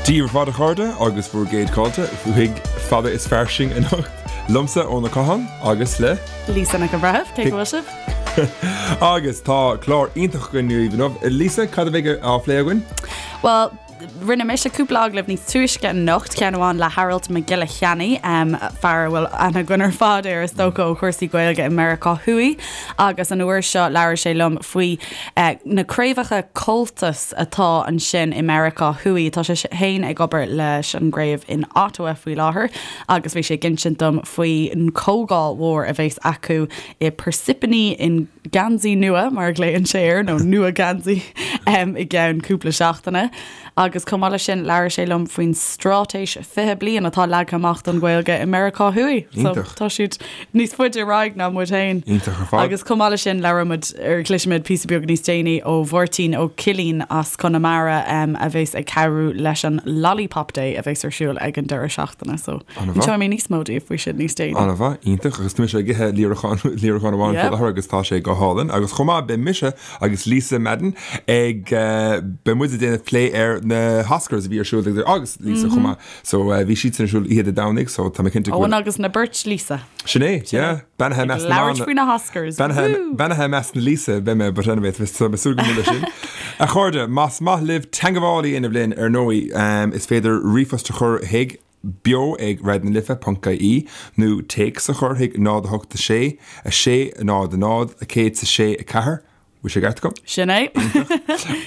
Dia daoibh ar fad a chairde agus bhur gcéad fáilte chuig Fada is Fairsing anocht liomsa Eoin Ó Catháin agus le. Lisa Nic an Bhreithimh, cé go bhfuil sibh? Agus tá clár iontach againn daoibh inniu. Lisa, cad a bheidh á phlé againn? Bhuel, Rinne mise cúpla agallamh níos túisce anocht, ceann amháin le Aralt Mac Giolla Cheannaigh, fear a bhfuil aithne againn ar fad air is dócha ó chúrsaí Gaeilge i Meiriceá Thuaidh, agus an uair seo labhair sé liom faoi na craobhacha Comhaltas atá ansin i Meiriceá Thuaidh. Tá sé féin ag obair leis an gcraobh in Ottawa faoi láthair agus bhí sé ag insint dom faoin chomhdháil mhór a bheas acu i Parsippany in Geansaí Nua, mar a ghlaonn sé air, nó Nua Geansaí, i gceann cúpla seachtaine. Agus chomh maith leis sin, labhair sé liom faoin straitéis 20 bliain atá leagtha amach don Ghaeilge i Meiriceá Thuaidh. So Iontach. tá siad níos faide ar aghaidh ná muid féin. Iontach ar fad. Agus chomh maith leis sin, labhróidh muid, ar cloisfimid píosa beag níos déanaí ó Mháirtín Ó Cillín as Conamara a bheas ag cabhrú leis an Lollipop Day a bheas ar siúl ag an deireadh seachtaine. So An-mhaith. inseoidh mé níos mó daoibh faoi sin níos déanaí. An-mhaith, iontach. Agus tá mise ag ithe líreachán, líreachán amháin faoi Yep. láthair agus tá sé go hálainn. Agus chomh maith, beidh mise agus Lisa Madden ag, beidh muid ag déanamh plé ar na hOscars a bhí ar siúl ag, agus Lisa chomh maith. So bhí siadsan ar siúl oíche Dé Domhnaigh, so tá mé cinnte go Eoin bhfuil. agus na beirt Lisa. Sin é, yeah. Beannaithe i measc na Labhairt mban. faoi na hOscars. Beannaithe, Woo! beannaithe i measc na Lisa, beidh mé, but anyway, tá mé súil go mór leis sin. A chairde, más maith libh teangmháil a dhéanamh linn, ar ndóigh, is féidir ríomhphost a chur chuig beo ag raidionalife ponc ie nó téacs a chur chuig 0 8 6 6 0 0 106 4. Bhfuil sé ceart agam? Sin é.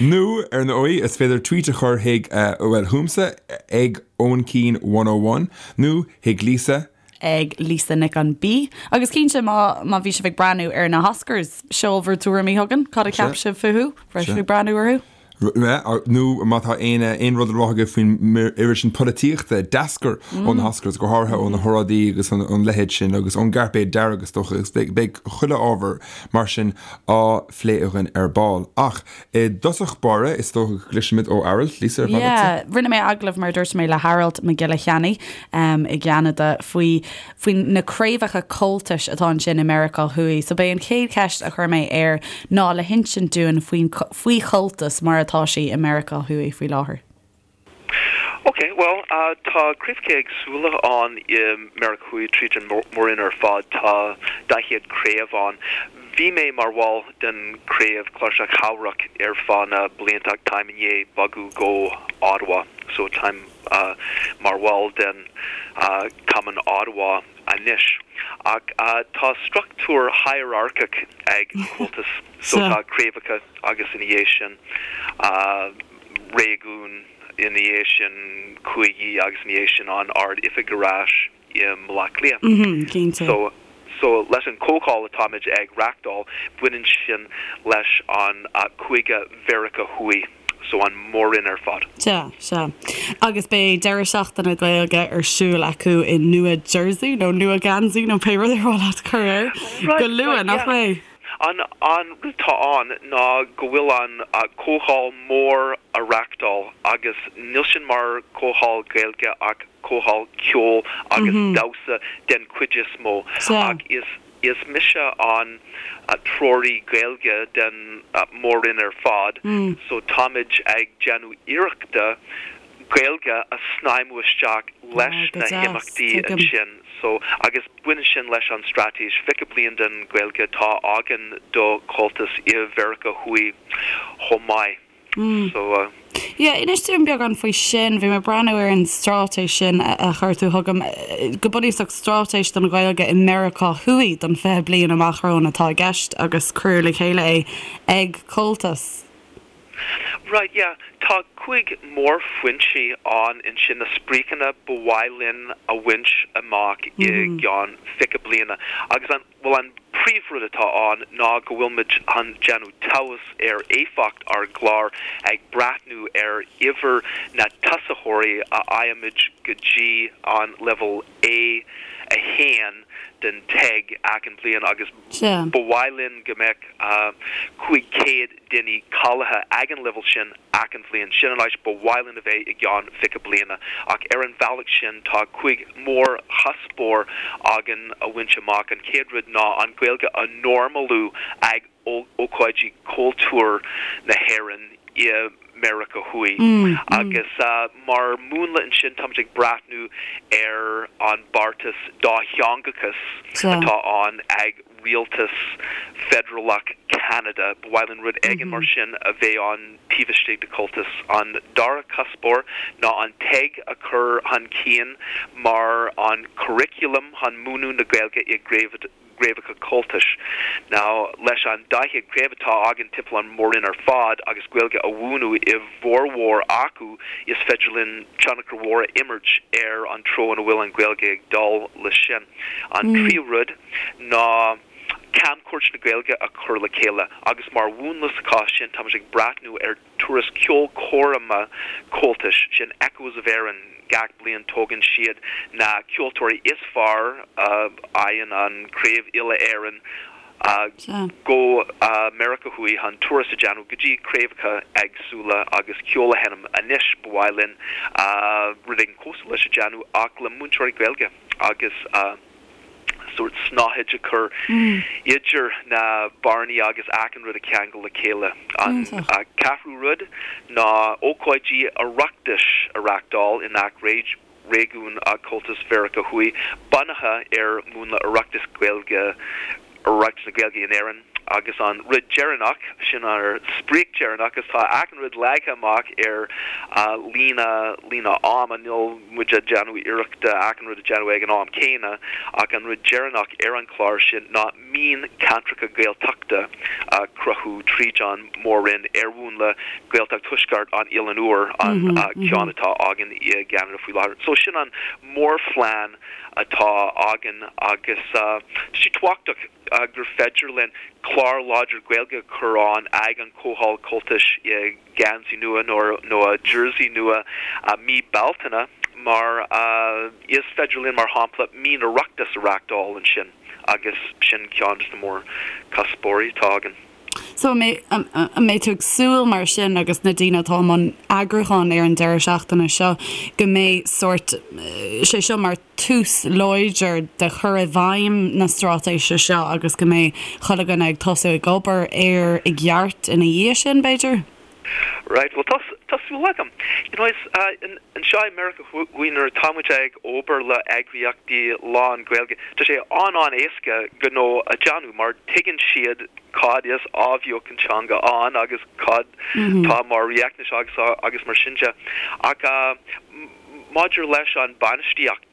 Nó, ar ndóigh, is féidir tweet a chur chuig, bhuel, chugamsa, ag Eoin Keane 101, nó chuig Lisa. ag Lisa Nic an B. Agus cinnte, má, má bhí sibh ag breathnú ar na hOscars, seol bhur dtuairimí chugainn, cad a cheap sibh fúthu? Raibh sibh ag breathnú orthu? Nó má tá aon aon rud le rá agaibh faoin oiread sin polaitíochta a d'eascair ó na hOscars, go háirithe ó na hóráidí agus an leithéid sin, agus ón gcairpéad dearg is dócha, agus beidh chuile ábhar mar sin á phlé againn ar ball. Ach i dtosach báire, is dócha go gcloisfimid ó Aralt, Lisa, ar mhaith leatsa? Yeah, rinne mé agallamh, mar a dúirt mé, le hAralt Mac Giolla Cheannaigh i gCeanada faoi faoi na craobhacha Comhaltais atá ansin i Meiriceá Thuaidh. So b'é an chéad cheist a chuir mé air ná le hinsint dúinn faoin faoi Chomhaltas mar atá sí i Meiriceá Thuaidh faoi láthair. Ok, bhuel, tá craobhacha éagsúla ann i Meiriceá Thuaidh tríd an mór-roinn ar fad. Tá 40 craobh ann. Bhí mé mar bhall den craobh Cláirseach Theamhrach ar feadh na blianta ach táim i ndiaidh bogadh go Ottawa so táim mar bhall den Cumann Ottawa anois. Ach tá struchtúr hierarcach ag Comhaltas so tá craobhacha agus ina dhiaidh sin réigiún, ina dhiaidh sin cúigí agus ina dhiaidh sin an Ard-Oifig ar ais. i mBaile Átha Cliath. Cinnte. So, so leis an comhdháil atáimid ag reachtáil, baineann sin leis an cúige Mheiriceá Thuaidh, so an mór-roinn ar fad. Sea, sea. Agus beidh deireadh seachtaine Gaeilge ar siúl acu i Nua Jersey, nó Nua Geansaí, nó pé rud ar mhaith leat cur air, Right, go luath, right, nach yeah. mbeidh? An, an rud atá ann ná go bhfuil an comhdháil mór á reachtáil agus níl sin mar comhdháil Gaeilge ach comhdháil ceoil agus damhsa den chuid is mó ach is is mise an treoraí Gaeilge den mór-roinn ar fad so táimid ag déanamh iarrachta Gaeilge a shnaidhmiú isteach leis na himeachtaí ansin so agus baineann sin leis an straitéis 20 bliain den Ghaeilge atá againn do Chomhaltas i Mheiriceá Thuaidh chomh maith. So. Yeah, inis dúinn beagán faoi sin. Bhí mé ag breathnú ar an straitéis sin a chuir tú chugam. Go bunúsach, straitéis don Ghaeilge i Meiriceá Thuaidh don 20 bliain amach romhainn atá i gceist agus cuireadh le chéile é ag Comhaltas. Right, yeah. Tá 5 mórphointí ann ansin, na spriocanna ba mhaith linn a bhaint amach i gceann 20 bliana. Agus an. Bhuel, an príomhrud atá ann ná go bhfuil muid chun déanamh tomhas ar éifeacht ár gclár ag breathnú ar uimhir na tosaitheoirí a fhaighimid go dtí an leibhéal A1 den TEG achan bliain agus ba mhaith linn go mbeadh 500 duine cáilithe ag an leibhéal sin achan bhliain. Sin an áit ba mhaith linn a bheith i gceann 20 bliana. Ach ar an bhealach sin tá 5 mhórchuspóir againn a bhaint amach. An chéad rud ná an Ghaeilge a normalú ag ócáidí cultúir na hÉireann i. Meiriceá Thuaidh. Agus mar mhúnla ansin táimid ag breathnú ar an beartas dátheangachas atá ann ag rialtas feidearálach Cheanada. Ba mhaith linn rud éigin mar sin a bheith ann taobh istigh de Comhaltas. An dara cuspóir ná an TEG a chur chun cinn mar an curriculum chun múineadh na Gaeilge i gcraobhacha Comhaltais. Now, leis an 40 craobh atá againn timpeall an mhór-roinn ar fad agus Gaeilge á mhúineadh i bhformhór acu, is féidir linn tionchar mhór a imirt ar an treo ina bhfuil an Ghaeilge ag dul leis sin. An tríú rud ná camchuairt na Gaeilge a chur le chéile agus mar mhúnla sa chás sin táimid ag breathnú ar turas ceolchoirme Comhaltais, sin Echoes of Erin, gach bliain tógann siad na ceoltóirí is fearr a fhaigheann an Craobh Uile-Éireann go Meiriceá Thuaidh chun turas a dhéanamh go dtí craobhacha éagsúla agus ceol a sheinm. Anois ba mhaith linn rud éigin cosúil leis a dhéanamh ach le múinteoirí Gaeilge agus sórt snáthaid a chur idir na bearnaí agus achan rud a cheangal le chéile. An ceathrú rud ná ócáidí Oireachtais a reáchtáil i ngach réigiún Comhaltas Mheiriceá Thuaidh bunaithe ar mhúnla Oireachtas Gaeilge, Oireachtas na Gaeilge in Éirinn. Agus an rud deireanach, sin ár sprioc deireanach, agus tá achan rud leagtha amach ar líne, líne ama, níl muid ag déanamh iarrachta achan rud a dhéanamh ag an am céanna, ach an rud deireanach ar an chlár sin ná mioncheantracha Gaeltachta a chruthú tríd an mór-roinn ar mhúnla Gaeltacht Thuaisceart an Oileáin Úir, an ceann atá againn i gCeanada faoi láthair. So sin an mórphlean atá againn agus tá sé tábhachtach gur féidir linn clár láidir Gaeilge a chur ann ag an Chomhdháil Comhaltais i ngeansaí nua nó i jersey nua mí Bealtaine mar is féidir linn, mar shampla, mí an Oireachtais a reáchtáil ansin agus sin ceann de na mórchuspóirí atá againn. So an mbeidh tú ag súil mar sin agus na daoine atá i mbun eagrúcháin ar an deireadh seachtaine seo go mbeidh sórt, sé seo mar tús láidir de chur i bhfeidhm na straitéise seo agus go mbeidh chuile dhuine ag tosú ag obair air i gceart ina dhiaidh sin, b'fhéidir? Right, bhuel tá, tá súil agam. You know, is anseo i Meiriceá Thuaidh nuair atá muid ag obair le eagraíochtaí lán-Ghaeilge, tá sé an-an-éasca gnó a dhéanamh mar tuigeann siad cad is athbheochan teanga ann agus cad tá mar riachtanais agus agus mar sin de. Ach maidir leis an bainistíocht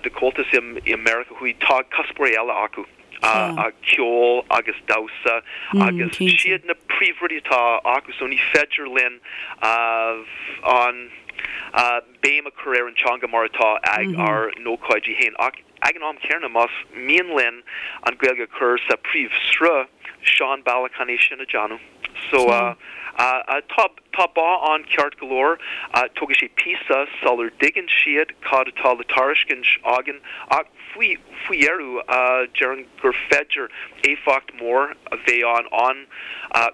de Comhaltas i Meiriceá Thuaidh, tá cuspóirí eile acu. ceol agus damhsa agus siad na príomhrudaí atá acu so ní féidir linn an béim a chur ar an teanga mar atá ag ár n-ócáidí féin ach ag an am céanna más mian linn an Ghaeilge a chur sa príomhshruth, seo an bealach chun é sin a dhéanamh. So tá tá bá ann ceart go leor, tógfaidh sé píosa sular dtuigeann siad cad atá le tairiscint againn ach faoi faoi dheireadh déarfainn gur féidir éifeacht mór a bheith ann an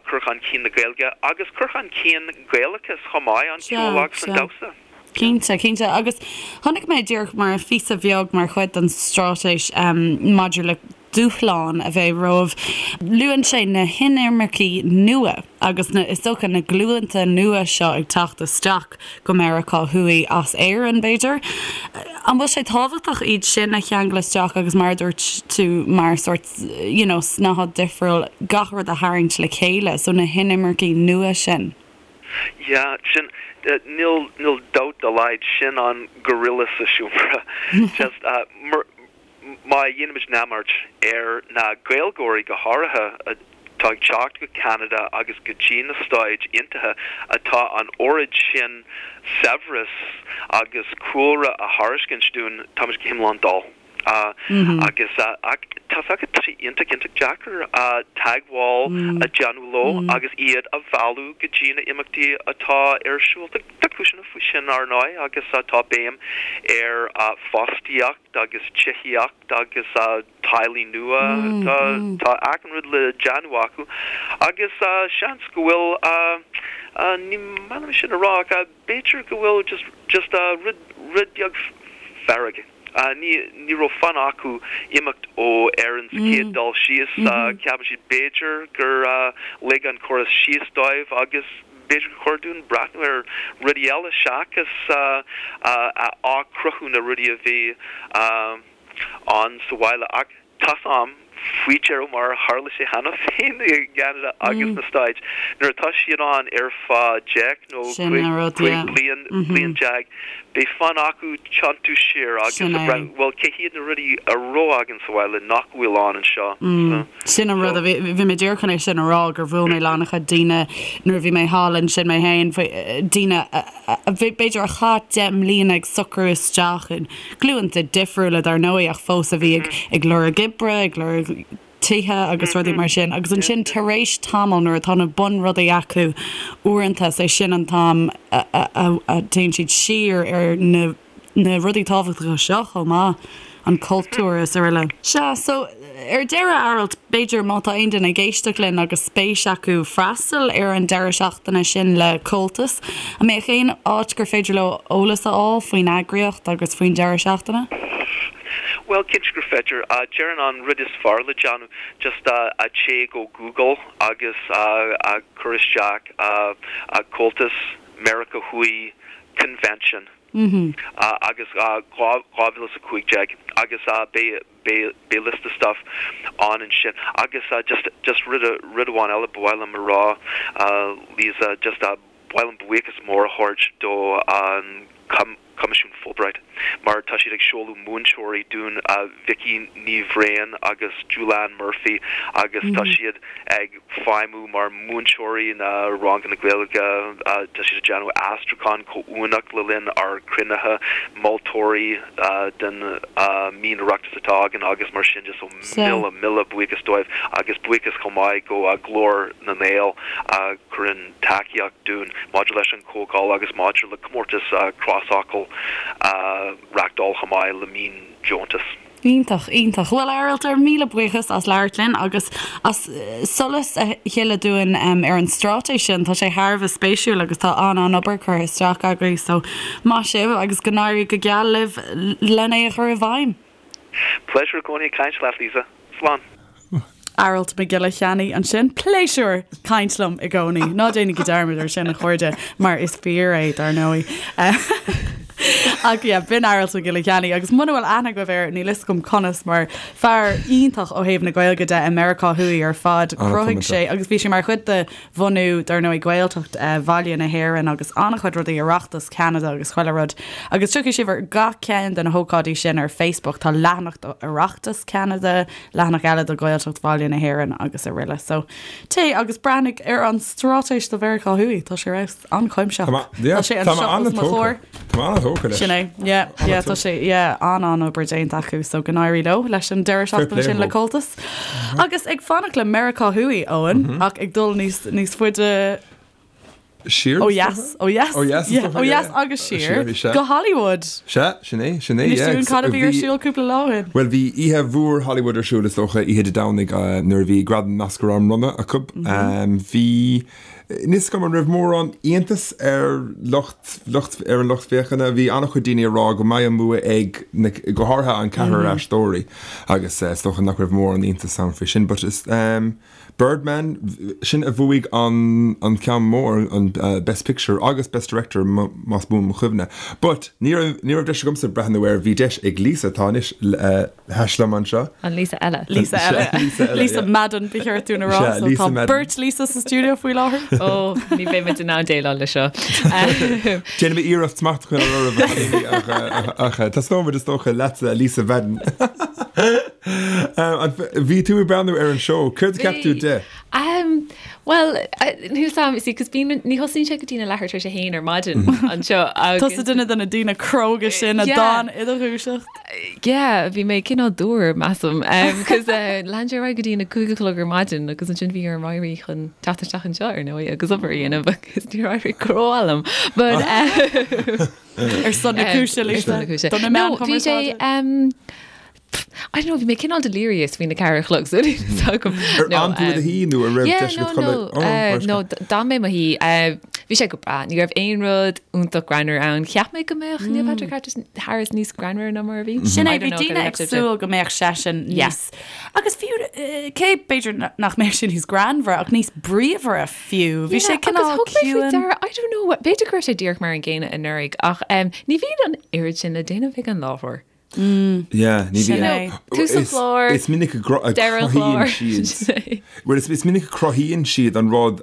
cur chun cinn na Gaeilge agus cur chun cinn Gaelachas chomh maith, an ceol agus an damhsa. Cinnte, cinnte. Agus chonaic mé díreach mar phíosa bheag mar chuid den straitéis maidir le dúshláin a bheidh romhaibh, luann sé na hinimircigh nua agus na, is dócha, na glúnta nua seo ag teacht isteach go Meiriceá Thuaidh as Éirinn, b'fhéidir. An bhfuil sé tábhachtach iad sin a cheangal isteach agus mar a dúirt tú mar sórt, you know, snáthaid difriúil, gach rud a tharraingt le chéile, so na hinimircigh nua sin? Yeah, sin, níl, níl dabht dá laghad, sin an gorilla sa seomra. Just, mar, má dhéanaimid neamart ar na Gaeilgeoirí go háirithe atá ag teacht go Ceanada agus go dtí na Stáit Aontaithe atá an oiread sin saibhreas agus cúlra a thairiscint dúinn, táimid go hiomlán dall. Agus tá 's agat, tá sé iontach, iontach deacair teagmháil a dhéanamh leo agus iad a mhealladh go dtí na imeachtaí atá ar siúl. Tá cúiseanna faoi sin, ar ndóigh, agus tá béim ar fostaíocht agus tithíocht agus teaghlaigh nua. Tá achan rud le déanamh acu agus seans go bhfuil, ní maith liom sin a rá ach b'fhéidir go bhfuil just, just rud, rud beag fearg. Ní, ní raibh fonn acu imeacht ó Éirinn sa chéad dul síos. Ceapann siad b'fhéidir gur lig an córas síos dóibh agus. b'fhéidir gur chóir dúinn breathnú ar rudaí eile seachas athchruthú na rudaí a bhí ann sa bhaile. Ach tá's a'm faoi dheireadh mar a tharla sé cheana féin i gCeanada agus sna Stáit, nuair atá siad ann ar feadh 10 nó 15 bliain, bliain, beidh fonn acu tiontú siar agus a breathnú, bhuel, cé hiad na rudaí a raibh againn sa bhaile nach bhfuil ann anseo? Sin an rud a bhí, bhí mé díreach chun é sin a rá, gur bhuail mé le an-chuid daoine nuair a bhí mé thall ansin mé féin, daoine a b'fhéidir a chaith 10 mbliana ag socrú isteach in glúnta difriúla dar ndóigh ach fós a bhí ag lorg oibre, ag lorg tithe agus rudaí mar sin agus ansin tar éis tamaill nuair atá na bunrudaí acu uaireanta is é sin an t-am a théann siad siar ar na na rudaí tábhachtacha seo chomh maith, an cultúr is araile. Sea, so, ar deireadh, Aralt, b'fhéidir má tá aon duine ag éisteacht linn agus spéis acu freastal ar an deireadh seachtaine sin le Comhaltas, an mbeadh aon áit gur féidir leo eolas a fháil faoin eagraíocht agus faoin deireadh seachtaine? Bhuel, cinnte gur féidir. Déarfainn an rud is fearr le déanamh, just téigh go Google agus cuir isteach Comhaltas Meiriceá Thuaidh Convention. agus 2015 agus beidh beidh liosta stuff ann ansin agus just just rud rud amháin eile ba mhaith liom a rá Lisa just ba mhaith liom buíochas mór a thabhairt do an Coimisiún Fulbright mar tá siad ag seoladh múinteoirí dúinn Vicky Ní Bhriain agus Julianne Murphy agus tá siad ag feidhmiú mar mhúinteoirí na ranganna Gaeilge, tá siad ag déanamh aistriúchán comhuaineach le linn ár gcruinnithe, moltóirí den mhín-Oireachtas atá againn agus mar sin de so mile, mile buíochas dóibh agus buíochas chomh maith go Glór na nGael a chuireann tacaíocht dúinn maidir leis an chomhdháil agus maidir le comórtas crosfhocal a reachtáil chomh maith le mín-deontas. Iontach, iontach. Bhuel, a Arailt, ár míle buíochas as labhairt linn agus as solas a shileadh dúinn ar an straitéis sin. Tá sé thar a bheith spéisiúil agus tá an-an-obair curtha isteach agaibh, so maith sibh agus go n-éirí go geal libh len é a chur i bhfeidhm. Pléisiúr i gcónaí caint leat, Lisa. Slán. Aralt Mac Giolla Cheannaigh ansin. Pléisiúr caint liom i gcónaí. Ná déanaigí dearmad ar sin, a chairde, mar is fíor é, dar ndóigh. Ach yeah, b'in Aralt Mac Giolla Cheannaigh agus muna bhfuil aithne agaibh air, níl fhios agam conas, mar fear iontach ó thaobh na Gaeilge de i Meiriceá Thuaidh ar fad. Chruthaigh sé, agus bhí sé mar chuid de bhunú, dar ndóigh, Gaeltacht Bhaile na hÉireann agus an-chuid rudaí, Oireachtas Cheanada agus chuile rud. Agus tiocfaidh sibh ar gach ceann de na hócáidí sin ar Facebook. Tá leathanach do Oireachtas Cheanada, leathanach eile do Ghaeltacht Bhaile na hÉireann agus aroile. So, téigh agus breathnaigh ar an straitéis do Mheiriceá Thuaidh. Tá sé ar fheabhas. An-chuimsitheach. Tá sé anseo os mo chomhair. Tá mé an-tógtha leis. Sin é. Yeah, yeah, tá sé, yeah, an-an-obair déanta acu, so go n-éirí leo leis an deireadh seachtaine sin le Comhaltas. Agus ag fanacht le Meiriceá Thuaidh, Eoin, ach ag dul níos, níos faide Siar? Ó dheas, ó dheas. Ó dheas, is dócha, Ó dheas agus siar. Siar, sea. Go Hollywood. Sea, sin é, sin é, Inis yeah. dúinn cad a bhí ar siúl cúpla lá ó shin. Bhuel, bhí oíche mhór Hollywood ar siúl, is dócha, oíche Dé Domhnaigh, nuair a bhí Gradaim Oscar á mbronnadh acu. Bhí, Níl 'fhios agam an raibh mórán iontas ar lucht, lucht, ar an lucht féachana. Bhí an-chuid daoine ag rá go mbeidh an bua ag na, go háirithe an ceathrar aisteoirí agus is dócha nach raibh mórán iontas ann faoi sin. But is, um, Birdman, sin a bhuaigh an, an ceann mór, an Best Picture agus Best Director más buan mo chuimhne. But ní raibh, ní raibh deis agamsa breathnú air, bhí deis ag Lisa, atá anois, eh, thais liom anseo. An Lisa eile. Lisa eile. Lisa eile, Lisa yeah. Madden ba cheart dúinn a rá. Sea, So Lisa tá Madden. beirt Lisa sa stiúideo faoi láthair. Ó, ní bheidh muid in ann déileáil le seo. Déanfaidh mé iarracht smacht a choinneáil oraibh a chailíní ach, eh, ach eh, tosnóidh muid is dócha leatsa Lisa Madden. Eh, an- Bhí tú ag breathnú ar an seó, céard a cheap tú Bhí. de? Um, Bhuel, níl 'fhios a'm, see, 'cause bíonn, ní thosaíonn sé go dtí na leathuair tar éis a haon ar maidin anseo agus. Tusa duine de na daoine cróga sin a Yeah. d'fhan i do dhúiseacht. Yeah, bhí mé cineál dúr, measaim, 'cause lean sé ar aghaidh go dtí na cúig a chlog ar maidin agus ansin bhí orm éirí chun teacht isteach anseo ar ndóigh agus obair a dhéanamh agus níor éirigh go rómhaith liom. But Ar son na cúise, Ar Lisa. son na cúise. Do na No, meáin bhí sé, chumarsáide. um, I don't know, bhí mé cineál delirious faoina ceathair a chlog so níl 'fhios agam. Ar fhan tú i do shuí nó an raibh Yeah, deis no, agat no, codladh? Oh, no, d'fhan mé i mo shuí. Bhí sé go breá. Ní raibh aon rud iontach greannmhar ann. Cheap mé go mbeadh Neil Patrick Harris níos greannmhaire ná mar a bhí. Sin é, bhí daoine ag súil go mbeadh seisean níos, agus fiú, cé b'fhéidir nach mbeadh sé níos greannmhaire ach níos bríomhaire fiú. Bhí sé cineál ciúin. I don't know, b'fhéidir go raibh sé díreach mar an gcéanna anuraidh ach ní bhíonn an oiread sin le déanamh ag an láithreoir. Yeah, ní Sin é. Tús an chláir, Is minic a deireadh an chláir. cruthaíonn siad. Well, is minic a cruthaíonn siad an rud,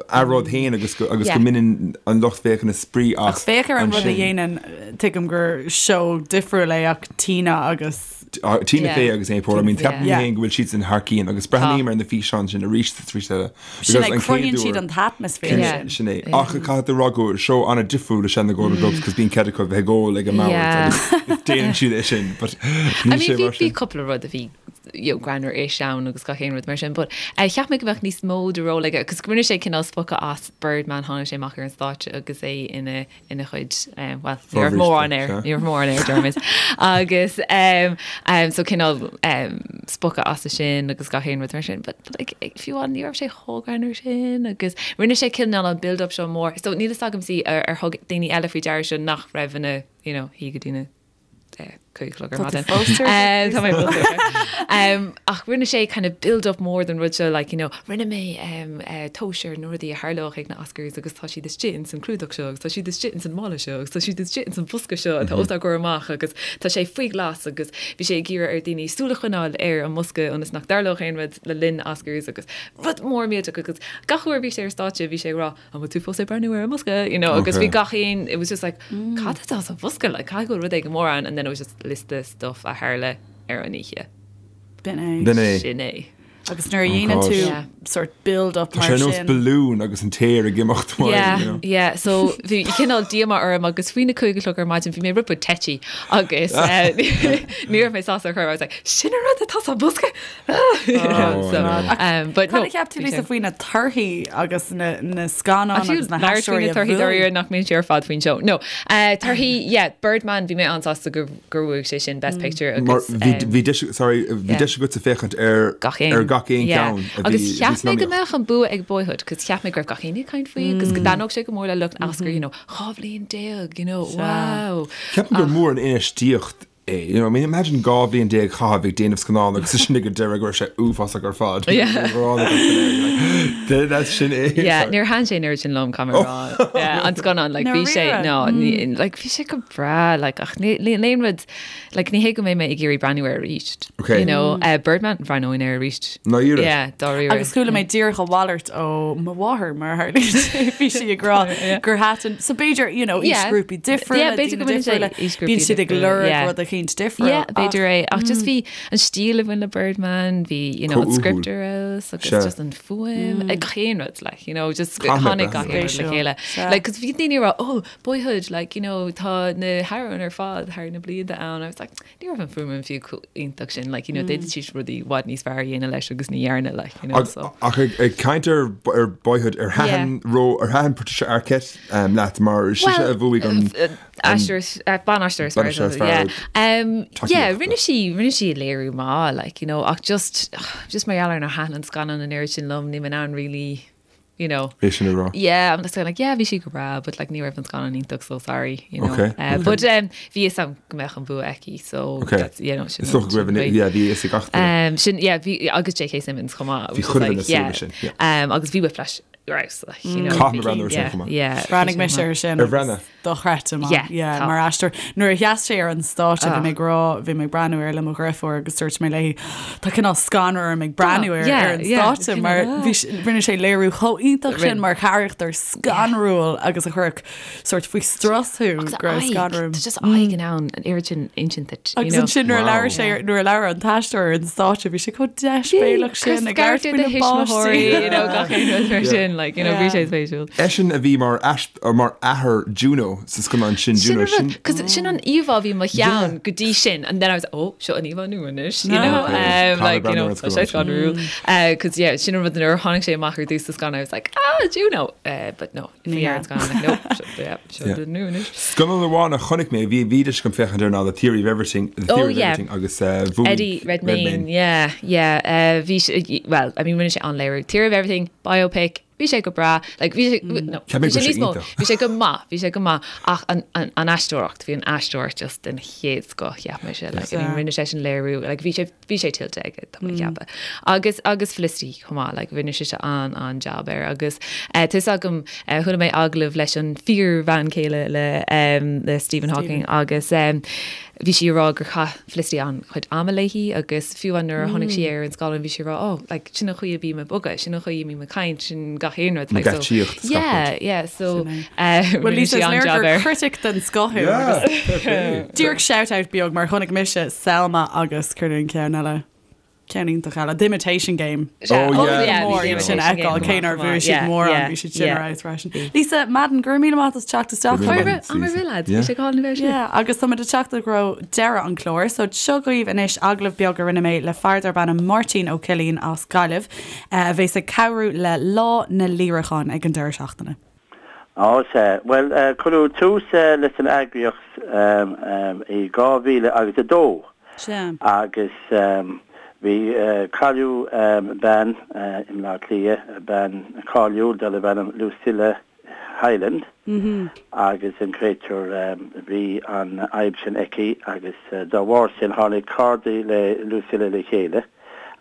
a rud féin agus go agus go mbaineann an lucht féachana spraoi as. Ach féach ar an rud a dhéanann, tuigim gur seó difriúil é ach Tina agus. Tina Fey agus Amy Poehler, I mean, ceapaim féin go bhfuil siadsan thar cionn agus breathnaím ar na físeáin sin arís is arís eile. Sin é, cruthaíonn siad an t-atmaisféar sin. Sin é. Ach caithfidh tú a rá gur seó an-difriúil is ea na Golden Globes cos bíonn cead acu bheith ag ól ag an mbord agus déanann siad é sin. But níl sé mar sin. Bhí cúpla rud a bhí you know, greannmhar-ish ann agus gach aon rud mar sin, but eh, cheap mé go mbeadh níos mó de ról aige, cos rinne sé cineál spochadh as Birdman, tháinig sé amach ar an stáitse agus é ina ina chuid, bhuel, ní raibh mórán air, ní raibh mórán air, déarfaimis. Agus so cineál spochadh as sin agus gach aon rud mar sin, but like fiú amháin ní raibh sé chomh greannmhar sin agus rinne sé cineál an build up seo mór. So níl fhios agam see ar thug daoine eile faoi deara seo nach raibh ina, you know, shuí go dtí na 5 a chlog ar maidin. Tá mé fós air. Ach rinne sé kind of build up mór den rud seo like you know rinne mé tomhas ar na rudaí a tharlódh ag na Oscars agus tá siad istigh ins an clúdach seo agus tá siad istigh ins an mála seo agus tá siad istigh ins an bhosca seo atá os ár gcomhair amach agus tá sé faoi ghlas agus bhí sé ag iarraidh ar daoine súil a choinneáil ar an mbosca ionas nach dtarlódh aon rud le linn Oscars agus rud mór millteach agus gach uair a bhí sé ar stáitse bhí sé ag rá an bhfuil tú fós ag breathnú ar an mbosca, you know, agus bhí gach aon, it was just like, cad atá sa bhosca, like, caithfidh go bhfuil rud éigin mór ann, and then it was just liosta stuff a tharla ar an oíche. B'in é. B'in é. Sin é. Agus nuair a dhéanann tú sort build up mar sin. Tá sé ar nós balún agus an t-aer ag imeacht uaidh, you know. Yeah, yeah, so bhí cineál díomá orm agus faoi na 5 a chlog ar maidin bhí mé rud beag tetchy agus ní raibh mé sásta ar chor, I was like, sin an rud atá sa bhosca! Cad a cheap tú Lisa faoi na torthaí agus na scannáin agus na haisteoirí a bhuaigh? Torthaí nach mbíonn sé ar fad faoin seó. No, torthaí, yeah, Birdman, bhí mé an-sásta gur bhuaigh sé sin Best Picture agus. Bhí deis, sorry, bhí deis agatsa féachaint ar gach aon ceann a bhí Agus cheap mé go mbeadh an bua ag Boyhood, cos cheap mé go raibh gach éinne ag caint faoi agus go dtaitneodh sé go mór le lucht Oscar, you know, 12 bhliain, you know, wow. Ceapaim gur mór an infheistíocht é. You know, I mean, imagine 12 bhliain a chaitheamh ag déanamh scannán agus ansin ag an deireadh go raibh sé uafásach ar fad. Yeah. Sin é. Yeah, níor thaitin sé an oiread sin liom, caithfidh mé a rá. Yeah, an scannán, like, bhí sé, no, ní, like, bhí sé go breá, like, ach ní, ní, aon rud, like, ní hé go mbeidh mé ag iarraidh breathnú air arís. Okay. You know, uh, Birdman, bhreathnóinn air arís. Dáiríre. Yeah, dáiríre. Agus chuala mé díreach a mhalairt ó mo mháthair mar a tharlaíonn sé, bhí sí ag rá gur thaitin, so b'fhéidir, you know, aoisghrúpaí difriúla, b'fhéidir go mbaineann sé aoisghrúpaí bíonn siad ag lorg rud eicínt difriúil. Yeah, b'fhéidir é, ach just bhí an stíl a bhain le Birdman, bhí, you know, an script ar fheabhas agus just an fuaim, ag gach aon rud, like, you know, just tháinig gach aon rud le chéile. Like, 'cause bhí daoine ag rá, oh, Boyhood, like, you know, tá na hamhráin ar fad thar na blianta ann, I was like, Ní raibh an fuaim fiú chomh iontach sin, like, you know, d'fhéadfadh siad rudaí i bhfad níos fearr a dhéanamh leis agus ní dhearna, like, you know, so. Ach ag caint ar ar Boyhood, ar thaitin ró, ar thaitin Patricia Arquette leat mar sise a bhuaigh an Aisteoir, ban-aisteoir is fearr, yeah. Yeah, rinne sí, rinne sí léiriú maith, like, you know, ach just, just mar gheall ar nár thaitin an scannán an oiread sin liom, níl mé in ann really, you know. É sin a rá. Yeah, I'm just kind of like, yeah, bhí sí go breá, but like ní raibh an scannán iontach, so sorry, you know. Okay, okay. But um, bhí fhios agam go mbeadh an bua aici, so okay. that's, you know, sin. Is dócha go raibh an, yeah, bhí fhios ag gach duine. Um, sin, yeah, bhí, agus J.K. Simmons chomh maith. Bhí chuile dhuine ag súil leis sin, yeah. Um, agus bhí Whiplash ar fheabhas, like, you know. Caithfidh mé breathnú air sin chomh maith. Yeah. Bhreathnaigh mise air sin. Ar bhreathnaigh? Dochreidte maith. Yeah, Yeah, tá. mar aisteoir. Nuair a sheas sé ar an stáitse, bhí mé ag rá, bhí mé ag breathnú air le mo dheirfiúr agus dúirt mé léi, tá cineál scanradh orm ag breathnú air yeah, ar an yeah, stáitse cineál, mar ah. bhí s- rinne sé léiriú chomh iontach sin Rinne. mar charachtar scanrúil agus a chuirfeadh sort faoi strus thú Agus go raibh aghaidh, scanradh orm. Tá just aghaidh in ann an oiread sin insint duit, you Agus know. ansin nuair a Wow. labhair sé, nuair a labhair an t-aisteoir ar an stáitse, bhí sé chomh deisbhéalach sin ag labhairt Scairteadh faoi na páistí. you know, gach aon rud mar sin, like, you know, bhí sé spéisiúil. Eisean a bhí mar mar athair Juno sa scannán sin, Sin Juno, an rud, sin. 'cause sin an íomhá a bhí i mo cheann go dtí sin, and then I was like, oh, seo an íomhá nua anois, you know, Okay. um, like, you know, Tá tá sé scanrúil. Uh, 'cause yeah, sin an rud nuair a tháinig sé amach ar dtús sa scannán, I was like, ah, Juno! Uh, but no, bhí ar an scannán, like, nope, seo, yeah, seo Yeah. an nua anois. Scannán amháin a chonaic mé, bhí bhí deis agam féachaint air ná The Theory of Everything, The Oh, Theory of yeah. Everything agus uh, bhuaigh Eddie Redmayne, yeah, yeah, uh, bhí sé, well, I mean, rinne sé an-léiriú. Theory of Everything, biopic, Bhí sé go breá, like bhí sé, no, Cheap mé bhí go sé raibh sé níos mó, iontach. bhí sé go maith, bhí sé go maith ach an, an, an aisteoireacht, bhí an aisteoireacht just den chéad scoth, cheap mise, like, I mean, rinne sé sin léiriú, like, bhí sé, bhí sé tuillte aige, tá mé ag ceapadh. Agus, agus Felicity chomh maith, like, rinne sise an, an-jab air agus eh, tá 'fhios agam, eh, chuala mé agallamh leis an fíor-bhean chéile le, em, le Stephen Hawking agus em, bhí sí ag rá gur chaith Felicity an-chuid ama léi agus fiú amháin nuair a chonaic sí é ar an scáileán bhí sí ag rá oh like sin an chaoi a bím ag bogadh, sin an chaoi a mbím ag caint, sin gach aon rud like so geáitsíocht yeah yeah so eh Well rinne Lisa sí is léir an-jab gur air. critic den scoth thú Yeah, agus fair play. díreach shout out beag mar chonaic mise Selma agus céard é an ceann eile. Ceann iontach eile, The Imitation Game. Oh, yeah. Mór iad sin a fheiceáil, cé nár bhuaigh siad mórán, bhí siad sin ar fheabhas freisin. Lisa Madden, go raibh míle maith as teacht isteach. Go raibh míle maith. Am ar bith, lads. Bhí sé go hálainn a bheith Yeah, agus táimid ag teacht i dtreo deireadh an chláir, so seo dhaoibh anois agallamh beag a rinne mé le fear darb ainm Máirtín Ó Cillín as Gaillimh, a bheas ag cabhrú le Lá na Líreachán ag an deireadh seachtaine. Á, sea. Bhuel, cuireadh tús leis an eagraíocht i 2000 agus 2 Sea. agus bhí, cailleadh bean i mBleá Cliath, bean cáiliúil darbh ainm Lucilla Hyland agus an créatúr, bhí an fhadhb sin aici agus dá bharr sin tháinig cairde le Lucilla le chéile.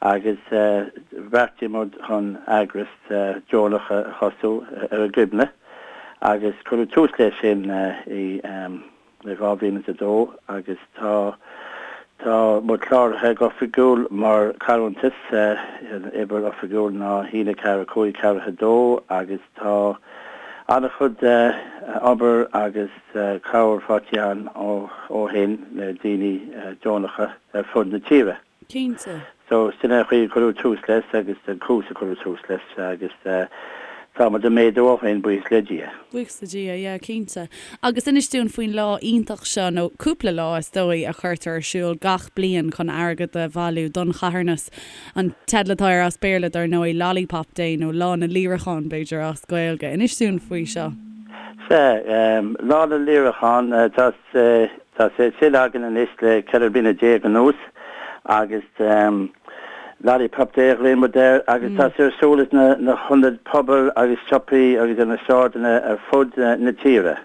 agus bheartaigh muid chun eagras deonach a thosú ar a gcuimhne agus cuireadh tús leis sin i 2002 agus tá tá muid cláraithe go oifigiúil mar carthanas, an uimhir oifigiúil ná 1 4 5 4 2 agus tá an-chuid obair agus cabhair faighte againn ó shin le daoine deonacha ar fud na tíre. Cinnte. So, sin é an chaoi a cuireadh tús leis agus an cúis a cuireadh tús leis agus tá muid ag méadú ó shin, buíochas le Dia. Buíochas le Dia, yeah, cinnte. Agus inis dúinn faoin lá iontach seo, nó cúpla lá is dóigh, a chuirtear ar siúl gach bliain chun airgead a bhailiú don charthanas. An teideal atá air as Béarla, dar ndóigh, Lollipop Day nó Lá na Líreachán, b'fhéidir, as Gaeilge. Inis dúinn faoi seo. Sea, Lá na Líreachán, tá Tá sé sin againn anois le 14 bliana anuas agus Lollipop Day a ghlaonn muid air agus tá sé ar siúl ins na hionaid pobail agus siopaí agus ar na sráideanna ar fud na tíre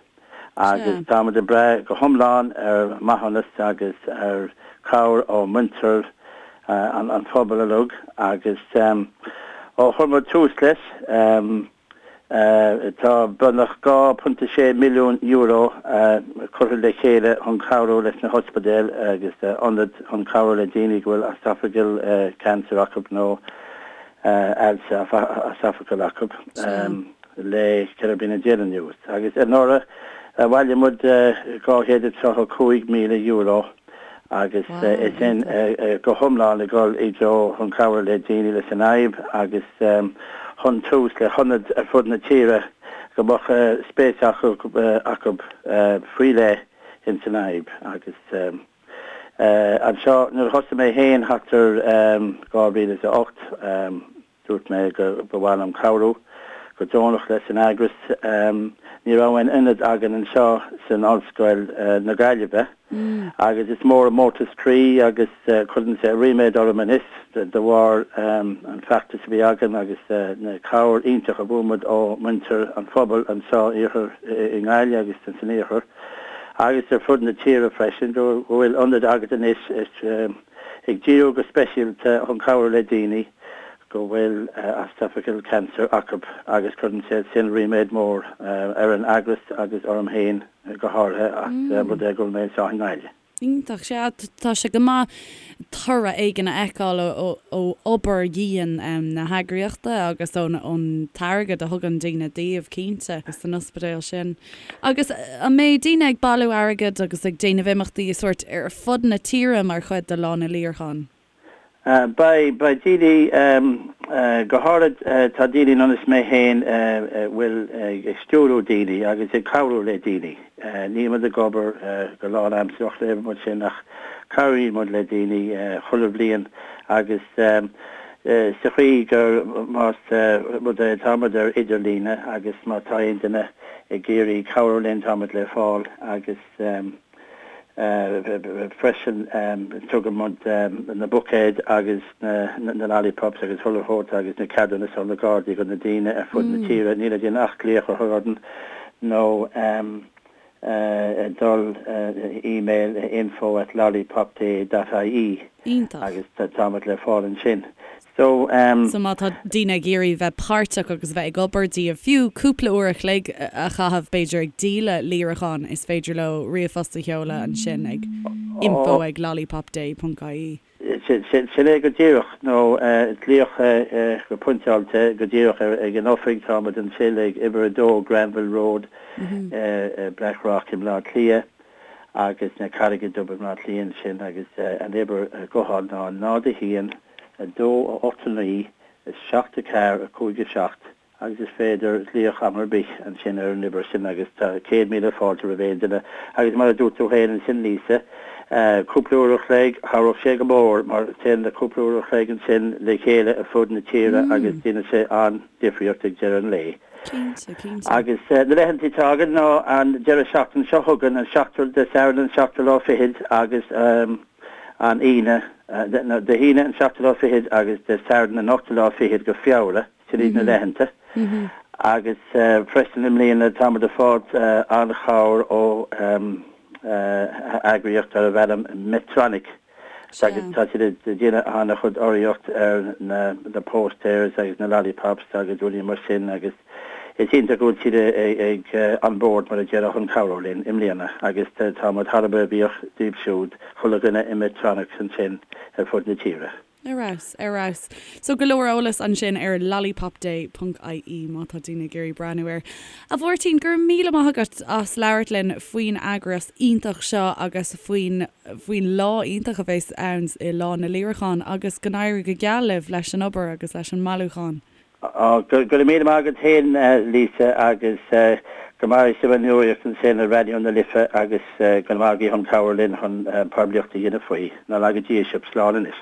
agus tá muid ag brath go hiomlán ar mhaithiúnas agus ar chabhair ó mhuintir an phobail uilig agus ó chuir muid tús leis Tá beagnach €2.6 milliún curtha le chéile chun cabhrú leis na hospidéil agus ionaid chun cabhrú le daoine go bhfuil esophageal cancer acu nó ailse esophageal acu le 14 bliana anuas. Agus anuraidh bhailigh muid €235,000. agus é sin go hiomlán ag dul i dtreo chun cabhrú le daoine leis an fhadhb agus chun tús le hionaid ar fud na tíre go mbeadh spéis acu acu faoi leith ins an fhadhb agus anseo nuair a thosaigh mé féin thart ar 2008 Dúirt mé go ba mhaith liom cabhrú go deonach leis an eagras. Ní raibh aon ionad againn anseo san Ollscoil na Gaillimhe agus is mór an mórtas croí agus cuireann sé ríméad orm anois de bharr an feachtas a bhí againn agus na cabhair iontach a bhfuair muid ó mhuintir an phobail anseo iarthar i nGaillimh agus san iarthar agus ar fud na tíre freisin go bhfuil ionad agat anois ag díriú go speisialta chun cabhrú le daoine go bhfuil esophageal cancer acu agus cuireann sé sin ríméad mór ar an eagras agus orm féin go háirithe as rud é go bhfuil mé anseo i nGaillimh. Iontach, sea, tá sé go maith toradh éigin a fheiceáil ó obair dhian na heagraíochta agus ón t-airgead a thugann daoine daoibh, cinnte, san ospidéal sin. Agus an mbeidh daoine ag bailiú airgid agus ag déanamh imeachtaí sóirt ar fud na tíre mar chuid de Lá na Líreachán? Beidh, beidh daoine, go háirid tá daoine ar nós mé féin a bhfuil ag stiúrú daoine agus ag cabhrú le daoine. Níl muid ag obair go lánaimsearach le muid sin ach cabhraíonn muid le daoine chuile bhliain agus sa chaoi gur más rud é tá muid ar idirlíne agus má tá aon duine ag iarraidh cabhrú linn, tá muid le fáil agus. Freisin tugann muid na buicéid agus na lollipops agus chuile shórt agus na ceadúnais ó na Gardaí go na daoine ar fud na tíre. Níl le déanamh ach glaoch a chur orainn nó dul email info at lollipopday dot ie agus táimid le fáil ansin. So, um. So má tá daoine ag iarraidh bheith páirteach agus bheith ag obair díobh, fiú cúpla uair a chloig a chaitheamh b'fhéidir ag díol líreacháin, is féidir leo ríomhphost a sheoladh ansin ag info ag lollipopday ponc ie. Sin é go díreach, nó glaoch go pointeáilte go díreach ag an oifig, táimid ansin ag uimhir 2 Granville Road, Blackrock i mBleá Cliath agus na Carraige Dubh i mBleá Cliath ansin agus an uimhir gutháin ná 0 1 2 8 9 7 4 5 7 agus is féidir glaoch am ar bith ansin ar an uimhir sin agus tá 100,000 fáilte roimh aon duine agus mar a dúirt tú féin ansin Lisa, cúpla uair a chloig, chabhródh sé go mór mar téann na cúpla uair a chloig ansin le chéile ar fud na tíre agus déanann sé an-difríocht ag deireadh an lae. Cinnte, cinnte. Agus na laethanta atá againn ná an deireadh seachtaine seo chugainn, an seachtú, Dé Sathairn an seachtú lá fichead agus an Aoine, nó Dé hAoine an seachtú lá fichead agus Dé Sathairn an ochtú lá fichead go Feabhra, sin iad na laethanta. Agus freisin i mbliana táimid ag fáilt an-chabhair ó eagraíocht darbh ainm Medtronic. Agus tá siad ag déanamh an-chuid urraíocht ar na posters agus na lollipops agus rudaí mar sin agus is iontach go bhfuil siad ag on board mar a déarfá chun cabhrú linn i mbliana agus tá muid thar a bheith buíoch díobh siúd, chuile dhuine i Medtronic ansin ar fud na tíre. Ar fheabhas, ar fheabhas. So go leor eolas ansin ar lollipopday ponc ie má tá daoine ag iarraidh breathnú air. A Mháirtín, go raibh míle maith agat as labhairt linn faoin eagras iontach seo agus faoin faoin lá iontach a bheas ann i Lá na Líreachán agus go n-éirí go geal libh leis an obair agus leis an mbailiúchán. Go raibh míle maith agat féin, Lisa, agus go maire sibh an nuacht ansin ar Raidió na Life agus go raibh maith agaibh chun cabhair linn chun poiblíocht a dhéanamh faoi. Ná laga Dia sibh. Slán anois.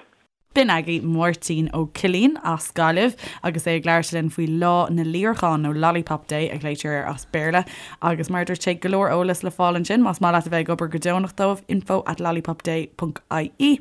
B'in agaibh Máirtín Ó Cillín as Gaillimh agus é ag labhairt linn faoi Lá na Líreachán, nó Lollipop Day a ghlaoitear air as Béarla. Agus mar a dúirt sé, go leor eolas le fáil ansin más maith leat a bheith ag obair go deonach dóibh, info at lollipopday ponc ie.